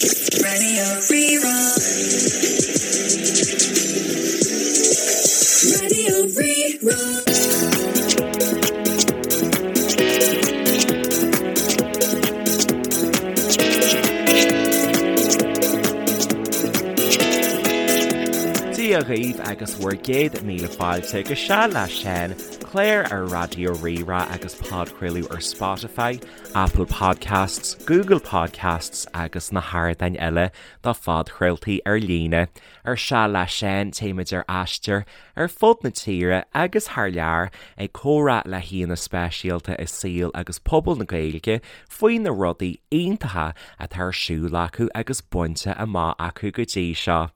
Radio Rí-Rá. Radio Rí-Rá. Dia dhaoibh agus bhur gcéad míle fáilte go Seal le Seán, clár ar Raidió Rí-Rá agus podchraoladh ar Spotify, Apple Podcasts, Google Podcasts agus na hardáin eile do phodchraoltaí ar líne. Ar Seal le Seán téimid ar aistear ar fud na tíre agus thar lear ag comhrá le haíonna speisialta i saol agus pobal na Gaeilge faoi na rudaí iontacha atá ar siúl acu agus bainte amach acu go dtí seo.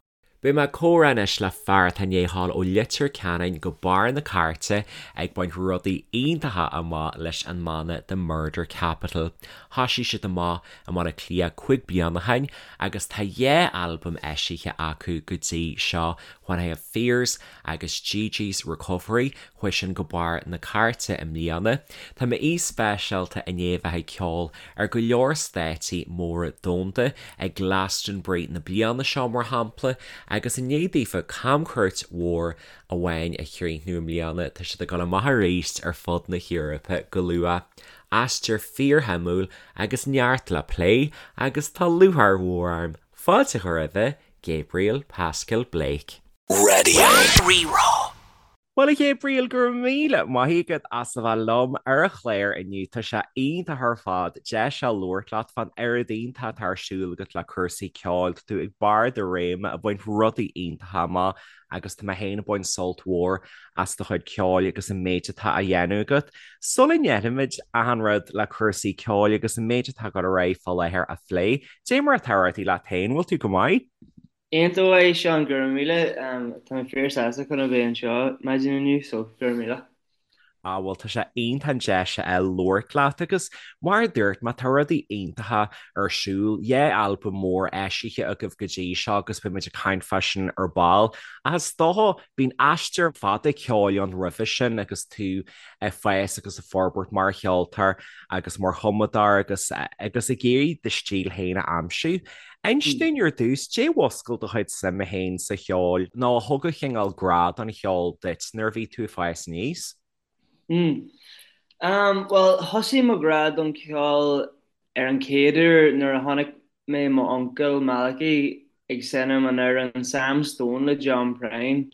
Beidh mé ag comhrá anois le fear atá i ndiaidh a ghabháil ó Leitir Ceanainn go barr na cairte ag baint rudaí iontacha amach leis an mbanna The Murder Capital. Thoisigh siad amach i mBaile Átha Cliath 5 bliana ó shin agus tá dhá albam eisithe acu go dtí seo, When I Have Fears agus Gigi's Recovery. Chuaigh sin go barr na cairte i mbliana. Tá m'aoi speisialta i ndiaidh a bheith ag ceol ar go leor stáitsí móra domhanda, ag Glastonbury na bliana seo mar shampla, agus i ndiaidh daofa camchuairt mhór amháin a chríochnú i mbliana, tá siad ag dul amach arís ar fud na hEorpa go luath. Aistear fíorshuimiúil agus neart le plé, agus tá lúcháir mhór orm fáilte a chur roimhe, Gabriel Pascal Blake. Radio Rí-Rá. Bhuel, a Ghabriel, go raibh míle maith agat as a bheith liom ar an chlár inniu. Tá sé iontach ar fad deis a labhairt leat fán oiread iontach atá ar siúl agat le cúrsaí ceoil. Tá tú ag barr do réime ag baint rudaí iontacha amach agus tá mé féin ag baint sult mhór as do chuid ceoil agus an méid atá á dhéanamh agat. Sula ndéanfaimid achan rud le cúrsaí ceoil agus an méid atá ag dul ar aghaidh fá láthair a phlé, dé mar atá rudaí leat féin, bhfuil tú go maith? Iontach maith, Seán, go raibh míle. Tá mé fíor sásta chun a bheith anseo maidin inniu, so go raibh míle. Ah bhuel tá sé iontach an deis a fháil labhairt leat agus mar a dúirt mé tá rudaí iontacha ar siúl, dhá albam mór eisithe agaibh go dtí seo agus beidh muid ag caint fá sin ar ball. Ach is dócha bíonn aistear fada ceoil ann roimhe sin agus tú ag fás agus ag forbairt mar cheoltóir agus mar chumadóir agus agus ag iarraidh do stíl féin a aimsiú. Inis dúinn ar dtús, dé mhuscail do chuid suime féin sa cheol nó a thug an chineál grá don cheol duit nuair a bhí tú ag fás aníos? Mm. Bhuel, thosaigh mo ghrá don cheol ar an chéad uair nuair a chonaic mé mo uncail Malachy ag seinm an amhrán Sam Stone le John Prine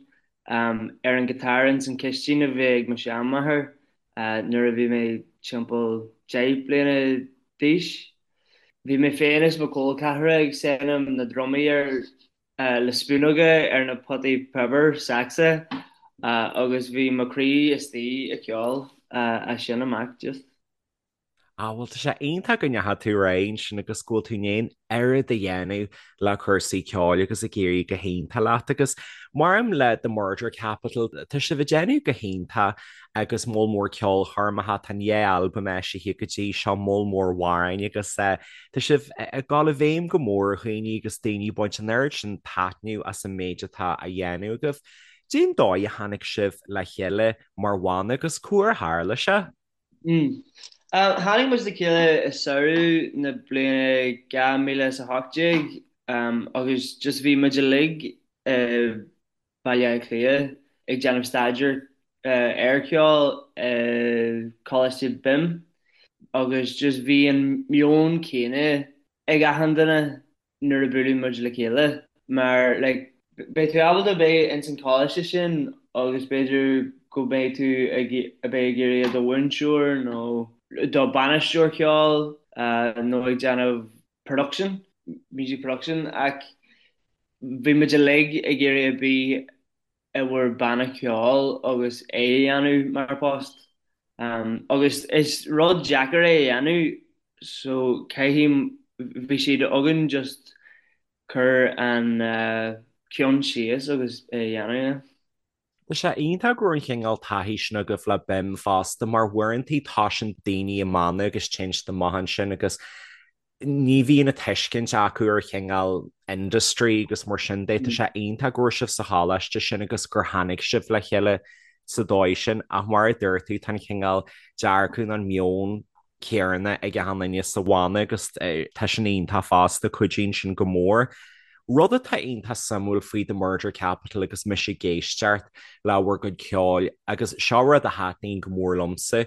ar an guitar ins an chistín a bhí ag mo sheanmháthair nuair a bhí mé timpeall 10 bliana d'aois. Bhí mé féin is mo chol ceathracha ag seinm na drumaí ar le spúnóga ar na potaí piobair saxa agus bhí mo chroí istigh i gceol as sin amach just. Ah bhuel tá sé iontach go ndeachaigh tú ar aghaidh ansin agus go bhfuil tú i ndiaidh an oiread a dhéanamh le cúrsaí ceoil agus ag éirí go hiontach leat agus maidir le The Murder Capital tá sibh ag déanamh go hiontach agus moll mór ceolchoirmeacha, tá an dhá albam eisithe go dtí seo, moll mór amhráin agus tá sibh ag dul i bhfeidhm go mór ar dhaoine agus daoine ag baint an oiread sin taitneamh as an méid atá á dhéanamh agaibh. Cén dóigh a tháinig sibh le chéile mar bhanna agus cá huair a tharla sé? Tháinig muid le chéile i samhradh na bliana 2018 agus just bhí muid uilig i Baile Átha Cliath ag déanamh staidéar ar cheol i Coláiste BIMM agus just bhí an meon céanna ag achan duine nuair a buaileadh muid le chéile mar like beidh tú ábalta beith ins an choláiste sin agus b'fhéidir go mbeidh tú ag a bheith ag iarraidh i do mhúinteoir nó do bainisteoir ceoil nó ag déanamh production, music production ach Bhí muid uilig ag iarraidh a bheith i bhur banna ceoil agus é a dhéanamh mar post. Agus is rud deacair é a dhéanamh so caithfidh, bhí sé againn just cur an ceann síos agus é a dhéanamh, yeah. Tá sé iontach go raibh an chineál taithí sin agaibh le BIMM fosta mar uaireantaí toisíonn daoine i mbanna agus téann siad amach ansin agus ní bhíonn an tuiscint acu ar chineál industry agus mar sin de. Tá sé iontach go raibh sibh sa choláiste sin agus gur tháinig sibh le chéile sa dóigh sin ach mar a dúirt tú tá an chineál dearcadh nó an meon. céanna ag achan duine sa bhanna agus tá sin iontach fosta, cuidíonn sin go mór. Rud atá iontach suimiúil faoi The Murder Capital agus mise ag éisteacht le bhur gcuid ceoil, agus seo rud a thaitníonn go mór liomsa,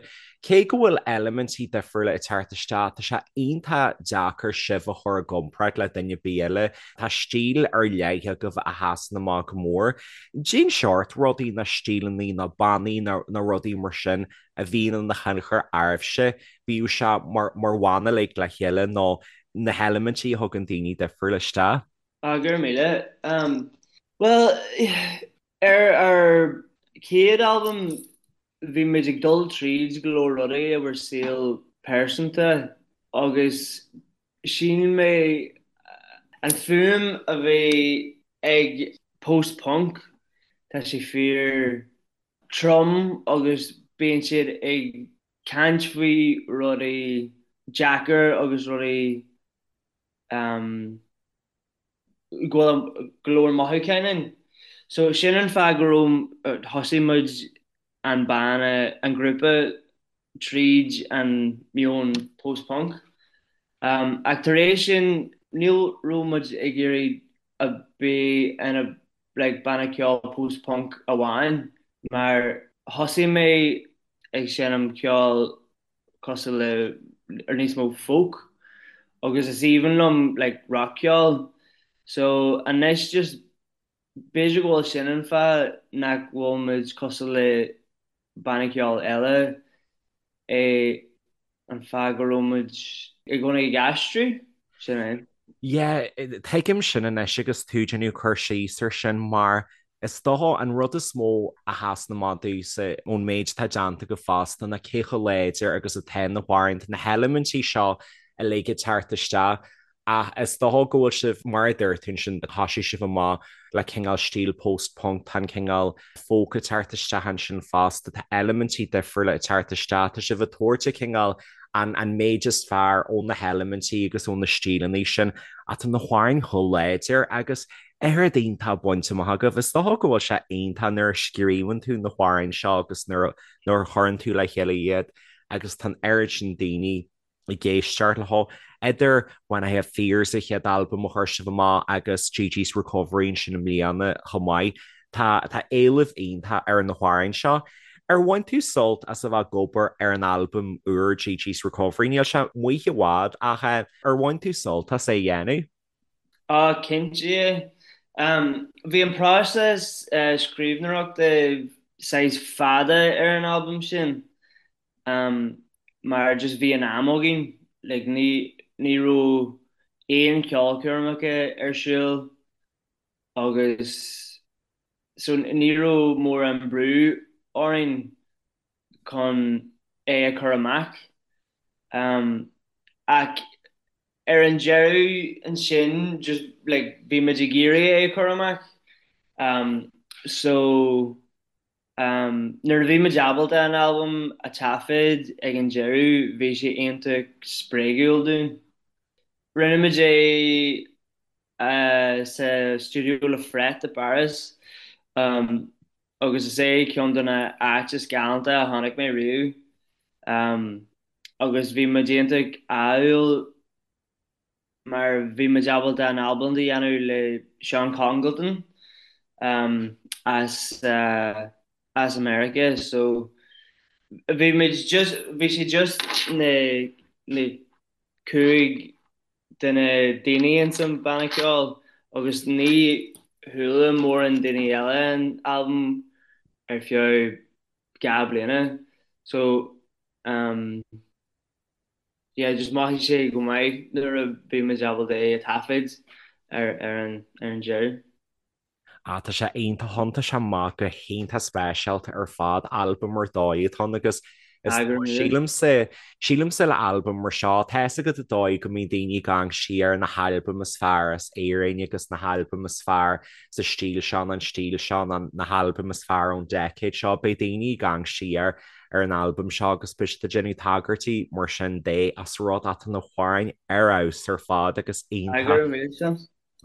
cé go bhfuil eilimintí difriúla ag teacht isteach, tá sé iontach deacair sibh a chur i gcomparáid le duine ar bith eile. Tá stíl ar leith agaibh a sheasann amach go mór. Cén seort rudaí nó stíleanna nó bannaí nó rudaí mar sin a bhíonn ina thionchar oraibhse, bíodh sé mar bhanna uilig le chéile nó na heilimintí a thugann daoine difriúla isteach. Ah, go raibh míle. Bhuel, ar ár chéad albam bhí muid ag dul tríd go leor rudaí i bhur saol pearsanta agus shíl mé an fuaim a bhí ag post-punk, tá sé fíor trom agus bíonn siad ag caint faoi rudaí deacair agus rudaí go bhfuil go leor mothúcháin ann. So sin an fáth go raibh, thosaigh muid an banna, an grúpa tríd an meon post-punk. Ach tar éis sin níl raibh muid ag iarraidh a bheith ina like banna ceoil post-punk amháin mar thosaigh mé ag seinm ceoil cosúil le ar níos mó folk agus is aoibhinn liom like rac-cheol so anois just b'fhéidir go bhfuil sin an fáth nach bhfuil muid cosúil le banna ceoil eile é an fáth go raibh muid i gcónaí ag aistriú, sin é. Yeah, tuigim sin anois agus tú ag déanamh cur síos ar sin mar is dócha an rud is mó a sheasann amach domhsa ón méid atá déanta agaibh fosta ná cé chomh láidir agus atá na hamhráin, tá na heilimintí seo uilig ag teacht isteach Ach is dócha go bhfuil sibh, mar a dúirt tú ansin, thosaigh sibh amach le cineál stíl post-punk, tá an cineál folk ag teacht isteach ansin fosta, tá eilimintí difriúla ag teacht isteach, tá sibh ag tabhairt an cineál, an an méid is fearr ó na heilimintí agus ó na stíleanna sin, ach tá na hamhráin chomh láidir agus oiread iontach bainte amach agaibh. Is dócha go bhfuil sé iontach nuair a scríobhann tú na hamhráin seo agus nuair a chuireann tú le chéile iad agus tá an oiread sin daoine ag éisteacht leo. Idir When I Have Fears, an chéad albam a chuir sibh amach, agus Gigi's Recovery ansin i mbliana chomh maith, tá tá éileamh iontach ar na hamhráin seo. Ar bhain tú sult as a bheith ag obair ar an albam úr Gigi's Recovery? Níl sé amuigh i bhfad ach ar bhain tú sult as é a dhéanamh? Á, cinnte. Bhí an próiseas scríbhneoireachta saghas fada ar an albam sin. Mar just bhí an am againn, like ní ní raibh aon cheolchoirmeacha ar siúl agus so ní raibh mórán brú orainn chun é a chur amach. Ach ar an deireadh ansin just like bhí muid ag iarraidh é a chur amach so Nuair a bhí muid ábalta an albam a taifead ag an deireadh bhí sé iontach spreagúil dúinn. Rinne muid é sa stiúideo Le Fret i bPáras agus is é ceann de na áit is galánta a chonaic mé riamh agus bhí muid iontach ádhúil mar bhí muid ábalta an albam a dhéanamh le Sean Congleton as as America so bhí muid just bhí sé just na na 5 de na daoine ins an banna ceoil agus ní chuala mórán daoine eile an albam ar feadh 2 bliana so um yeah just mhothaigh sé go maith nuair a bhí muid ábalta é a taifead ar ar an ar an deireadh. Ah tá sé iontach thiontaigh sé amach go hiontach speisialta ar fad, albam ar dóigh atá ann agus is Ah go raibh míle. sílimse, sílimse le albam mar seo, tá fhios agat an dóigh go mbíonn daoine ag amharc siar ar na halbaim is fearr as Éirinn agus na halbaim is fearr sa stíl seo nó an stíl seo nó na halbaim is fearr ón decade seo, beidh daoine ag amharc siar ar an albam seo agus beidh siad ag déanamh tagairtí mar sin de as rud atá na hamhráin ar fheabhas ar fad agus iontach. Go raibh míle Seán.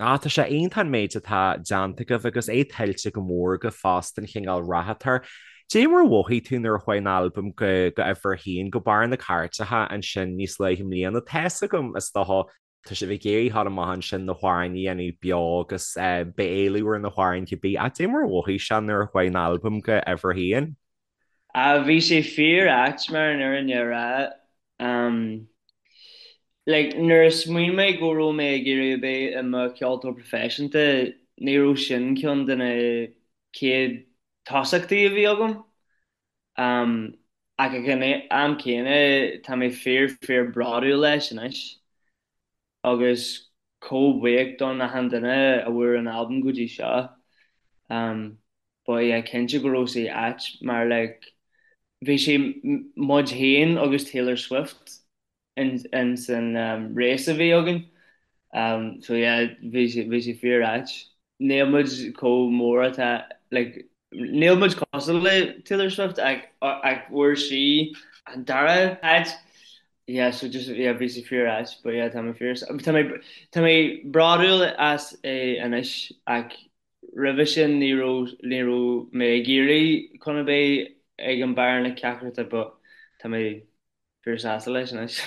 Ah, tá sé iontach an méid atá déanta agaibh agus é tuillte go mór agaibh fosta an chineál rath atá air. Dé mar a mhothaigh tú nuair a chuaigh an albam go go uimhir a haon, go barr na cairteacha ansin níos luaithe i mbliana? Tá's agam, is dócha, tá sibh ag iarraidh a ghabháil amach ansin na hamhráin a dhéanamh beo agus beidh éileamh ar na hamhráin cibé. Ach dé mar a mhothaigh sé nuair a chuaigh an albam go uimhir a haon? Bhí sé fíor ait mar an fhírinne a rá. Like, nuair a smaoin mé go raibh mé ag iarraidh a bheith i mo cheoltóir proifisiúnta, ní raibh sin ceann de na chéad tosachtaí a bhí agam. Ach ag an am céanna, tá mé fíor fíor bródúil leis anois agus chomh buíoch don achan duine a bhfuair an albam go dtí seo. But yeah, cinnte go raibh sé ait mar like bhí sé muid féin agus Taylor Swift in san race a bhí againn. So yeah, bhí sé bhí sé fíor ait. Níl muid chomh mór atá like níl muid cosúil le Taylor Swift ach ach fuair sí an dara háit. Yeah, so just yeah bhí sé fíor ait but yeah tá mé fíor tá mé tá mé bródúil as é anois ach roimhe sin ní raibh ní raibh mé ag iarraidh chun a bheith ag an barr na cearta but tá mé fíor sásta leis anois.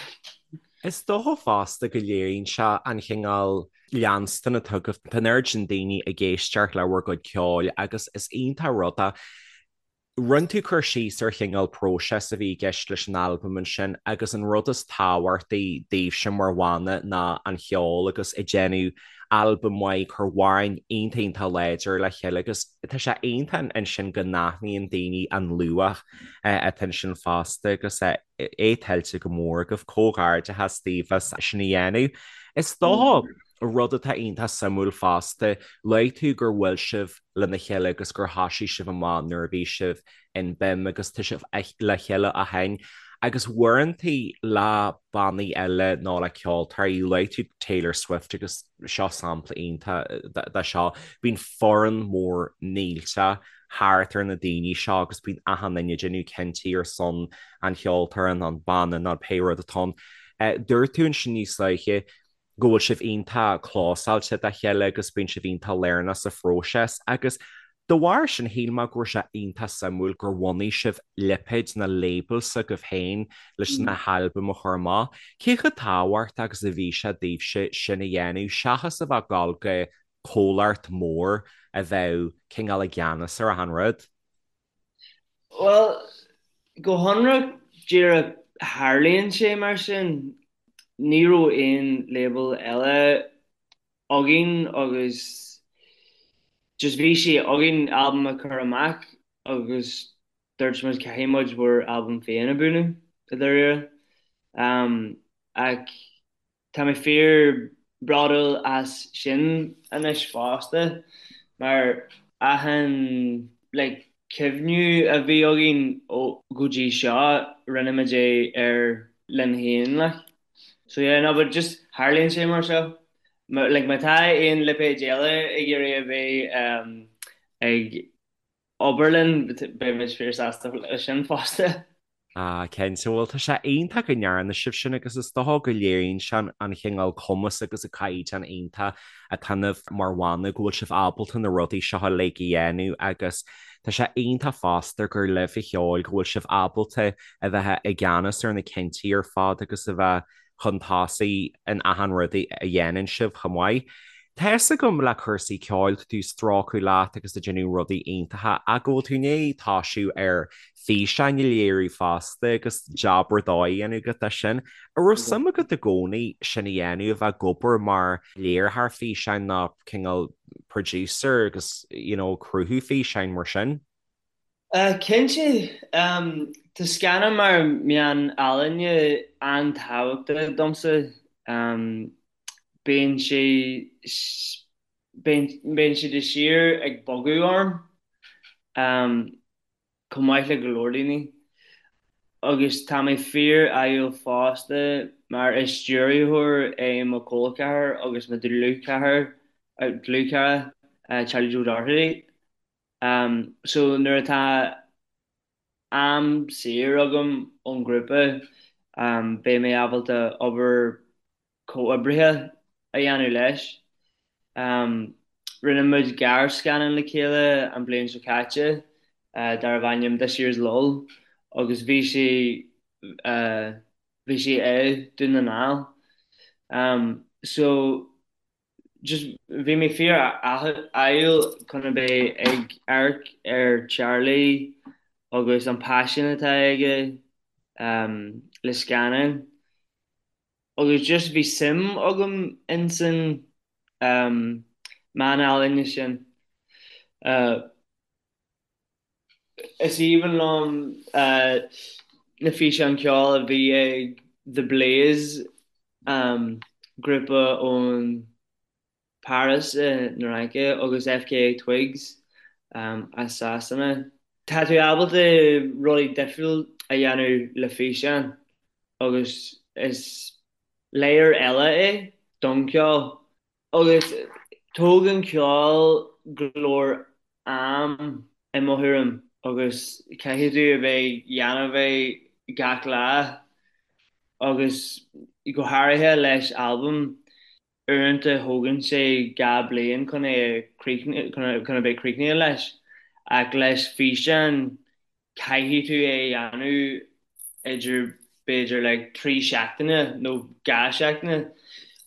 Is dócha fosta go léiríonn sé an chineál leanstan atá agaibh. Tá an oiread sin daoine ag éisteacht le bhur gcuid ceoil agus is iontach rud é. Rinne tú cur síos ar chineál próiseas a bhí i gceist leis an albam ansin agus an rud is tábhachtaí daoibhse mar bhanna ná an cheol agus ag déanamh albam maith, cur amhráin iontach iontach láidir le chéile agus tá sé iontach ansin go n-aithníonn daoine an luach atá ansin fosta agus é tuillte go mór agaibh. Comhghairdeachas daoibh as sin a dhéanamh. Is dócha rud atá iontach suimiúil fosta, luaigh tú gur bhuail sibh lena chéile agus gur thosaigh sibh amach nuair a bhí sibh in BIMM agus tá sibh le chéile ó shin agus uaireantaí le bannaí eile nó le ceoltóirí, luaigh tú Taylor Swift agus seo sampla iontach de seo, bíonn foireann mór millteach thart ar na daoine seo agus bíonn achan duine ag déanamh cinntí ar son an cheoltóra nó an banna nó pé rud atá ann. Dúirt tú ansin níos luaithe go bhfuil sibh iontach clósáilte dá chéile agus bíonn sibh iontach lárnach sa phróiseas agus de bharr sin shíl mé go raibh sé iontach suimiúil gur bhunaigh sibh lipéad nó label s'agaibh féin leis na halbaim a chur amach. Cé chomh tábhachtach agus a bhí sé daoibhse sin a dhéanamh seachas a bheith ag dul go comhlacht mór a bheadh cineál i gceannas ar achan rud? Bhuel, go hionraic díreach tharlaíonn sé mar sin. Ní raibh aon label eile againn agus just bhí sé againn albam a chur amach agus dúirt muid caithfidh muid bhur albam féin a bhunú i dáiríre. Ach Tá mé fíor bródúil as sin anois fosta mar achan like cuimhniú a bhí againn ó go dtí seo rinne muid é ar linn féin like. So yeah no but just tharlaíonn sé mar seo. Like má tá aon lipéid eile ag iarraidh a bheith um, ag obair linn, beidh muid fíor sásta leis sin fosta. Ah, cinnte, bhuel tá sé iontach go ndearna sibh sin agus is dócha go léiríonn sé an chineál cumas agus an caighdeán iontach atá ionaibh mar bhanna go bhfuil sibh ábalta na rudaí seo uilig a dhéanamh agus tá sé iontach fosta gur libh a cheol go bhfuil sibh ábalta a bheith i gceannas ar na cinntí ar fad agus a bheith chun tosaigh in achan rud a dhéanann sibh chomh maith. Tá fhios agam le cúrsaí ceoil, tá tú ag strócadh leat agus ag déanamh rudaí iontacha ach go bhfuil tú i ndiaidh toisiú ar físeáin a léiriú fosta agus jab ar dóigh a dhéanamh agat de sin. An raibh suim agat i gcónaí sin a dhéanamh, a bheith ag obair mar léiritheoir físeáin nó cineál producer agus you know cruthú físeáin mar sin? Cinnte. Tá scannán mar meán ealaíne an-tábhachtach domsa. Bíonn sé bíonn sé de shíor ag bogadh orm, chomh maith le go leor daoine. Agus tá mé fíor-ádhúil fosta mar is stiúrthóir é mo chol ceathar agus mo dhlúthchara, Charlie Joe Doherty. So nuair atá am saor agam ón ghrúpa, beidh mé ábalta obair comhoibrithe a dhéanamh leis. Rinne muid gearrscannán le chéile an bhliain seo caite. darbh ainm This Year's Lull agus bhí sé bhí sé i Dún na nGall. So just bhí mé fíor ádhúil chun a bheith ag amharc ar Charlie agus an paisean atá aige le scannáin agus just bhí suim agam insan meán ealaíne sin. Is aoibhinn liom na físeáin ceoil a bhí ag The Blaze, grúpa ón Paris i na Fhraince, agus FKA Twigs as Sasana. Tá tú ábalta rudaí difriúil a dhéanamh le físeán agus is layer eile é don cheol. Agus tógann ceol go leor am i mo thuairim agus caithfidh tú a bheith dhéanamh é gach lá agus go háirithe leis albam, uaireanta thógann sé 2 bliain chun é a chun a bheith críochnaithe leis ach leis físeán caithfidh tú é a dhéanamh idir b'fhéidir like 3 seachtaine nó 2 seachtaine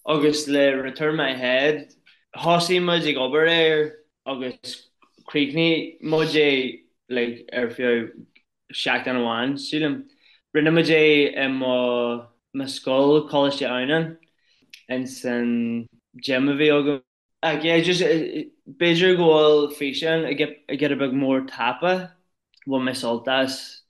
agus le Return My Head thosaigh muid ag obair air agus chríochnaigh muid é like ar feadh seachtain amháin sílim. Rinne muid é i mo mo scoil, Coláiste Adhamhnáin, ins an gym a bhí agam. Ach yeah, just b'fhéidir go bhfuil físeán giota beag mór tapa, bhain mé sult as.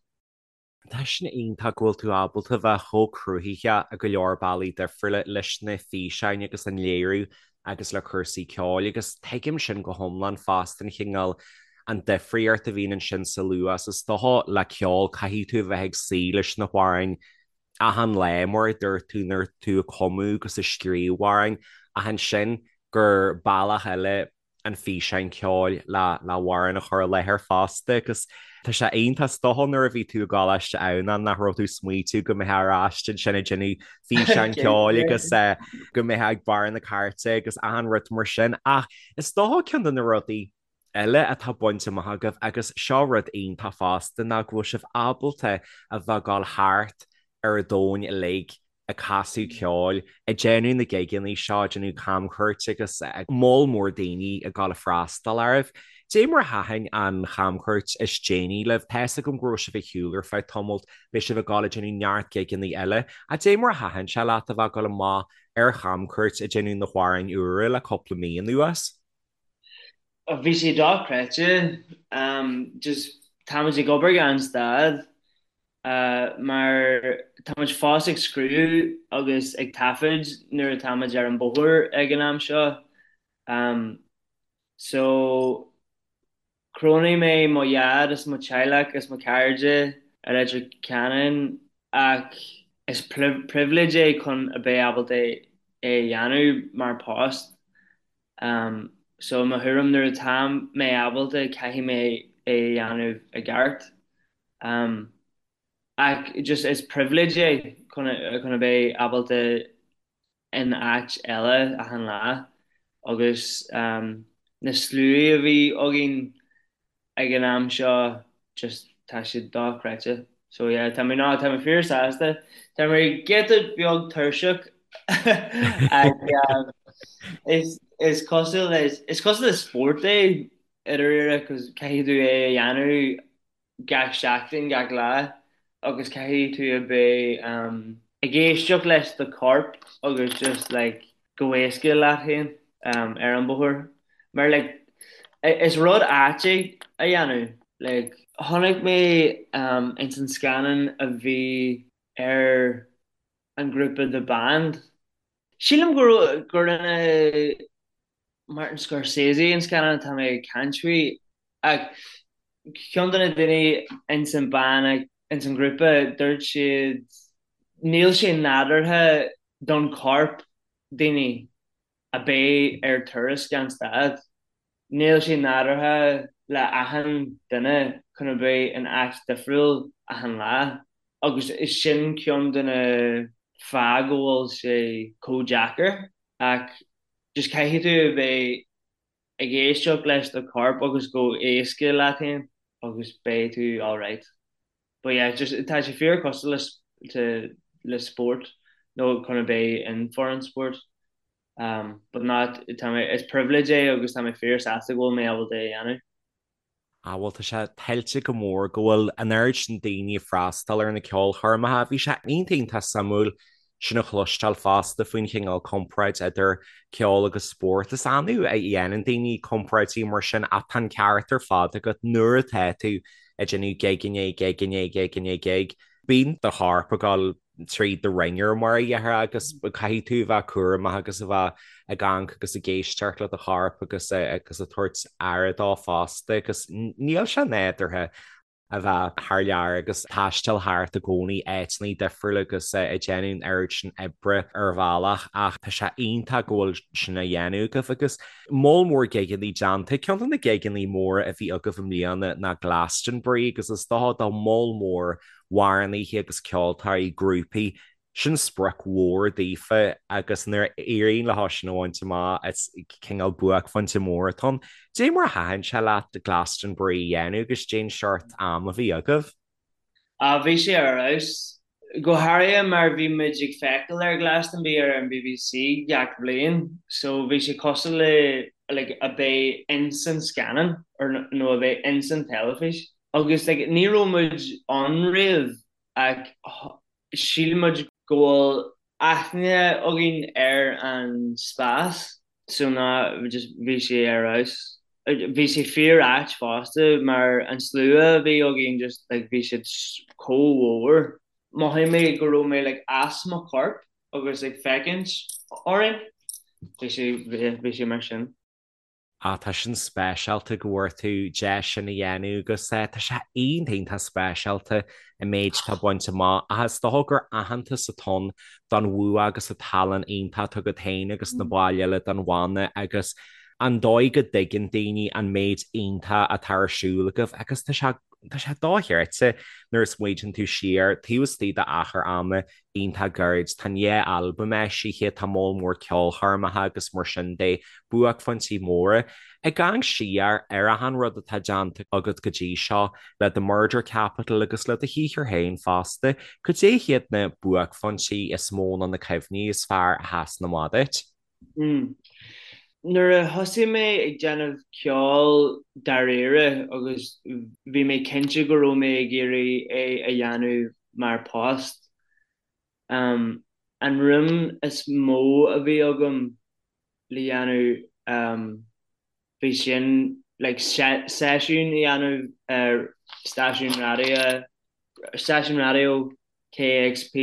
Tá sin iontach go bhfuil tú ábalta bheith chomh cruthaitheach i go leor bealaí difriúla leis na físeáin agus an léiriú agus le cúrsaí ceoil agus tuigim sin go hiomlán fosta an chineál an difríocht a bhíonn ansin sa luas is dócha le ceol caithfidh tú a bheith ag suí leis na hamhráin achan lá, mar a dúirt tú, nuair tú ag cumadh agus ag scríobh amhráin, ach ansin gur bealach eile an físeán ceoil le le hamhrán a chur i láthair fosta agus tá sé iontach is dócha nuair a bhí tú i gColáiste Adhamhnáin nach raibh tú ag smaoitiú go mbeifeá ar ais ansin ag déanamh físeán ceoil agus go mbeifeá ag barr na cairte agus achan rud mar sin ach is dócha ceann de na rudaí eile atá bainte amach agaibh agus seo rud iontach fosta ná go bhfuil sibh ábalta a bheith ag dul thart ar an domhan uilig ag casadh ceoil, ag déanamh na gigeanna seo, ag déanamh camchuairt agus moll mór daoine ag dul ag freastal oraibh. Dé mar a thaitin an chamchuairt is déanaí libh? Tá fhios agam go raibh sibh ar shiúl ar feadh tamaill, beidh sibh ag dul ag déanamh neart gigeanna eile, ach dé mar a thaitin sé leat a bheith ag dul amach ar chamchuairt ag déanamh na hamhráin úra le cúpla mí anuas? Bhí sé dochreidte. Just táimid ag obair gan stad mar táimid fós ag scríobh agus ag taifead nuair atáimid ar an bóthar ag an am seo. So chronaigh mé mo dhaid is mo teaghlach is mo chairde i Leitir Ceanainn ach is pribhléid é chun a bheith ábalta é a dhéanamh mar post. So i mo thuairim nuair atá mé ábalta caithfidh mé é a dhéanamh i gceart. Ach just is pribhléid é chun chun a bheith ábalta in áit eile achan lá agus na sluaí a bhí againn ag an am seo just tá siad dochreidte. So yeah tá mé ná tá mé fíor sásta. Tá mé giota beag tuirseach ach is is cosúil le is cosúil le spórt é i ndáiríre cos caithfidh tú é a dhéanamh gach seachtain, gach lá agus caithfidh tú a bheith ag éisteacht leis do chorp agus just like go héasca leat féin ar an bóthar. Mar like is rud ait é a dhéanamh. Like chonaic mé ins an scannán a bhí ar an grúpa The Band. Sílim go gur rinne Martin Scorsese an scannán atá mé ag caint faoi ach ceann de na daoine ins an band ins an ghrúpa dúirt siad níl sé nádúrtha don chorp daoine a bheith ar turas gan stad. Níl sé nádúrtha le achan duine chun a bheith in áit difriúil achan lá agus is sin ceann de na fáth go bhfuil sé chomh deacair ach just caithfidh tú a bheith ag éisteacht leis do chorp agus go héasca leat féin. agus beidh tú alright. But yeah, just tá sé fíor cosúil le to le spórt nó chun a bheith in foireann spóirt. Um, but not tá mé is privilege é agus tá mé fíor sásta go bhfuil mé ábalta é a dhéanamh. Ah bhuel tá sé tuillte go mór go bhfuil an oiread sin daoine ag freastal ar na ceolchoirmeacha. Bhí sé iontach iontach suimiúil sin a chloisteáil fosta faoin chineál comparáid idir ceol agus spórt. Is annamh a dhéanann daoine comparáidí mar sin ach tá an ceart ar fad agat nuair atá tú ag déanamh gig i ndiaidh gig i ndiaidh gig i ndiaidh gig, bíonn do chorp ag dul tríd the wringer mar a déarfá agus caithfidh tú a bheith cúramach agus a bheith ag amharc agus ag éisteacht le do chorp agus agus ag tabhairt aire dó fosta agus níl sé nádúrtha a bheith thar lear agus taisteal thart i gcónaí áiteanna difriúla agus ag déanamh an oiread sin oibre ar bhealach ach tá sé iontach go bhfuil sin á dhéanamh agaibh agus moll mór gigeanna déanta. Ceann de na gigeanna móra a bhí agaibh i mbliana ná Glastonbury agus is dócha do moll mór amhránaithe agus ceoltóirí, grúpaí, sin sprioc mhór daofa agus nuair a éiríonn leo sin a bhaint amach is cineál buaicphointe mór atá ann. Dé mar a thaitin sé leat Glastonbury a dhéanamh agus dén seort am a bhí agaibh? Ah bhí sé ar fheabhas. Go háirithe mar bhí muid ag feiceáil ar Glastonbury ar an BBC gach bhliain so bhí sé cosúil le like a bheith ins an scannán or nó a bheith ins an teilifís. Agus like ní raibh muid ann riamh ach shíl muid go bhfuil aithne againn ar an spás so ná just bhí sé ar fheabhas. Bhí sé fíor ait fosta mar an slua a bhí againn just like bhí siad chomh mhór. Mhothaigh mé go raibh mé like as mo chorp agus ag féachaint orainn. Bhí sé bhí sé mar sin. Ah, tá sin speisialta go bhfuair tú deis sin a dhéanamh agus tá sé iontach iontach speisialta an méid atá bainte amach ach is dócha gur aitheantas atá ann don bhua agus an tallann iontach atá agat féin agus na baill eile den bhanna agus an dóigh go dtuigeann daoine an méid iontach atá ar siúl agaibh agus tá sé tá sé dochreidte nuair a smaoitíonn tú siar taobh istigh d'achar ama iontach gairid. Tá an dhá albam eisithe, tá moll mór ceolchoirmeacha agus mar sin de, buaicphointí móra. Ag amharc siar ar achan rud atá déanta agat go dtí seo, le The Murder Capital agus le do shaothar féin fosta, cad é hiad na buaicphointí is mó nó na cuimhní is fearr a sheasann amach duit? Nuair a thosaigh mé ag déanamh ceoil dáiríre agus bhí mé cinnte go raibh mé ag iarraidh é a dhéanamh mar post, an rún is mó a bhí agam le dhéanamh bhí sin like seisiún a dhéanamh ar stáisiún raidió, stáisiún raidió KEXP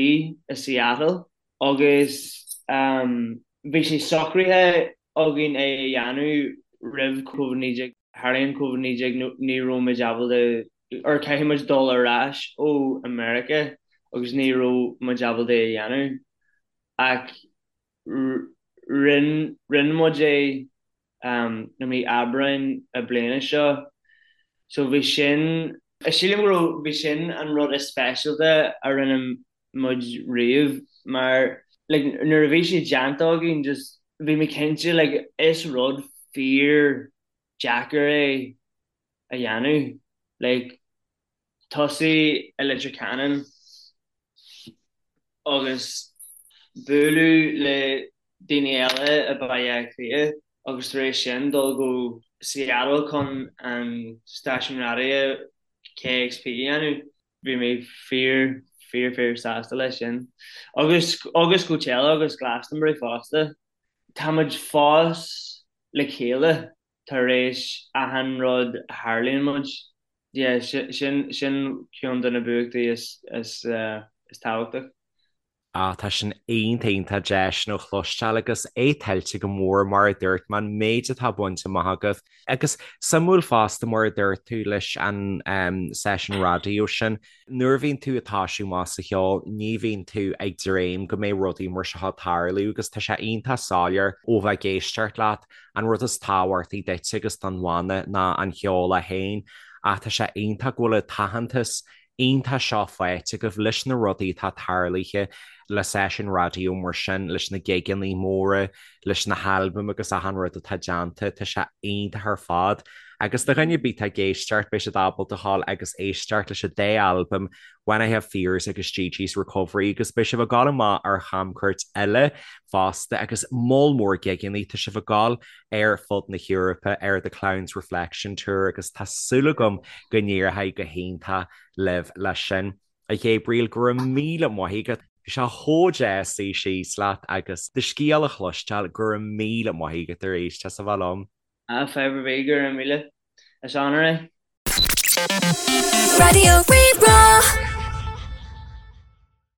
i Seattle. Agus bhí sé socraithe againn é a dhéanamh roimh Covid-19. Tharlaíonn Covid-19 ní raibh muid ábalta, or caithfidh muid dul ar ais ó America agus ní raibh muid ábalta é a dhéanamh. Ach rinne muid é i mí Aibreáin na bliana seo. So bhí sin, sílim go raibh, bhí sin an rud is speisialta a rinne muid riamh mar like nuair a bhí sé déanta againn just bhí mé cinnte like is rud fíor deacair é a dhéanamh like tosú i Leitir Ceanainn agus bualadh le daoine eile i Baile Átha Cliath agus tar éis sin dul go Seattle chun an stáisiún raidió KEXP a dhéanamh. Bhí mé fíor, fíor, fíor sásta leis sin. Agus, agus Coachella agus Glastonbury fosta. Tá muid fós le chéile tar éis achan rud a tharlaíonn muid. Yeah, sin, sin ceann de na buachtaí is, is, is tábhachtach. Ah, tá sin iontach iontach deas sin a chloisteáil agus é tuillte go mór mar a dúirt mé an méid atá bainte amach agaibh. Agus suimiúil fosta mar a dúirt tú leis an seisiún raidió sin, nuair a bhíonn tú ag toisiú amach sa cheol ní bhíonn tú ag dréim go mbeidh rudaí mar seo ag tarlú agus tá sé iontach soiléir ó bheith ag éisteacht leat an rud is tábhachtaí duit agus don bhanna ná an cheol é féin ach tá sé iontach go bhfuil an t-aitheantas iontach seo faighte agaibh leis na rudaí atá tarlaithe. le seisiún raidió mar sin, leis na gigeanna móra, leis na halbaim agus achan rud atá déanta, tá sé iontach ar fad. Agus do dhuine ar bith atá ag éisteacht, beidh siad ábalta a ghabháil agus éisteacht leis an dá albam, When I Have Fears agus Gigi's Recovery agus beidh sibh ag gabháil amach ar chamchuairt eile fosta agus moll mór gigeanna, tá sibh ag gabháil ar fud na hEorpa ar The Clown's Reflection Tour agus tá súil agam go n-éireoidh go hiontach libh leis sin. A Ghabriel, go raibh míle maith agat. Bhí sé chomh deas suí síos leat agus do scéal a chloisteáil, go raibh míle maith agat arís as a bheith liom. Ah, fadhb ar bith, go raibh míle. Is onóir é. Raidió Rí-Rá.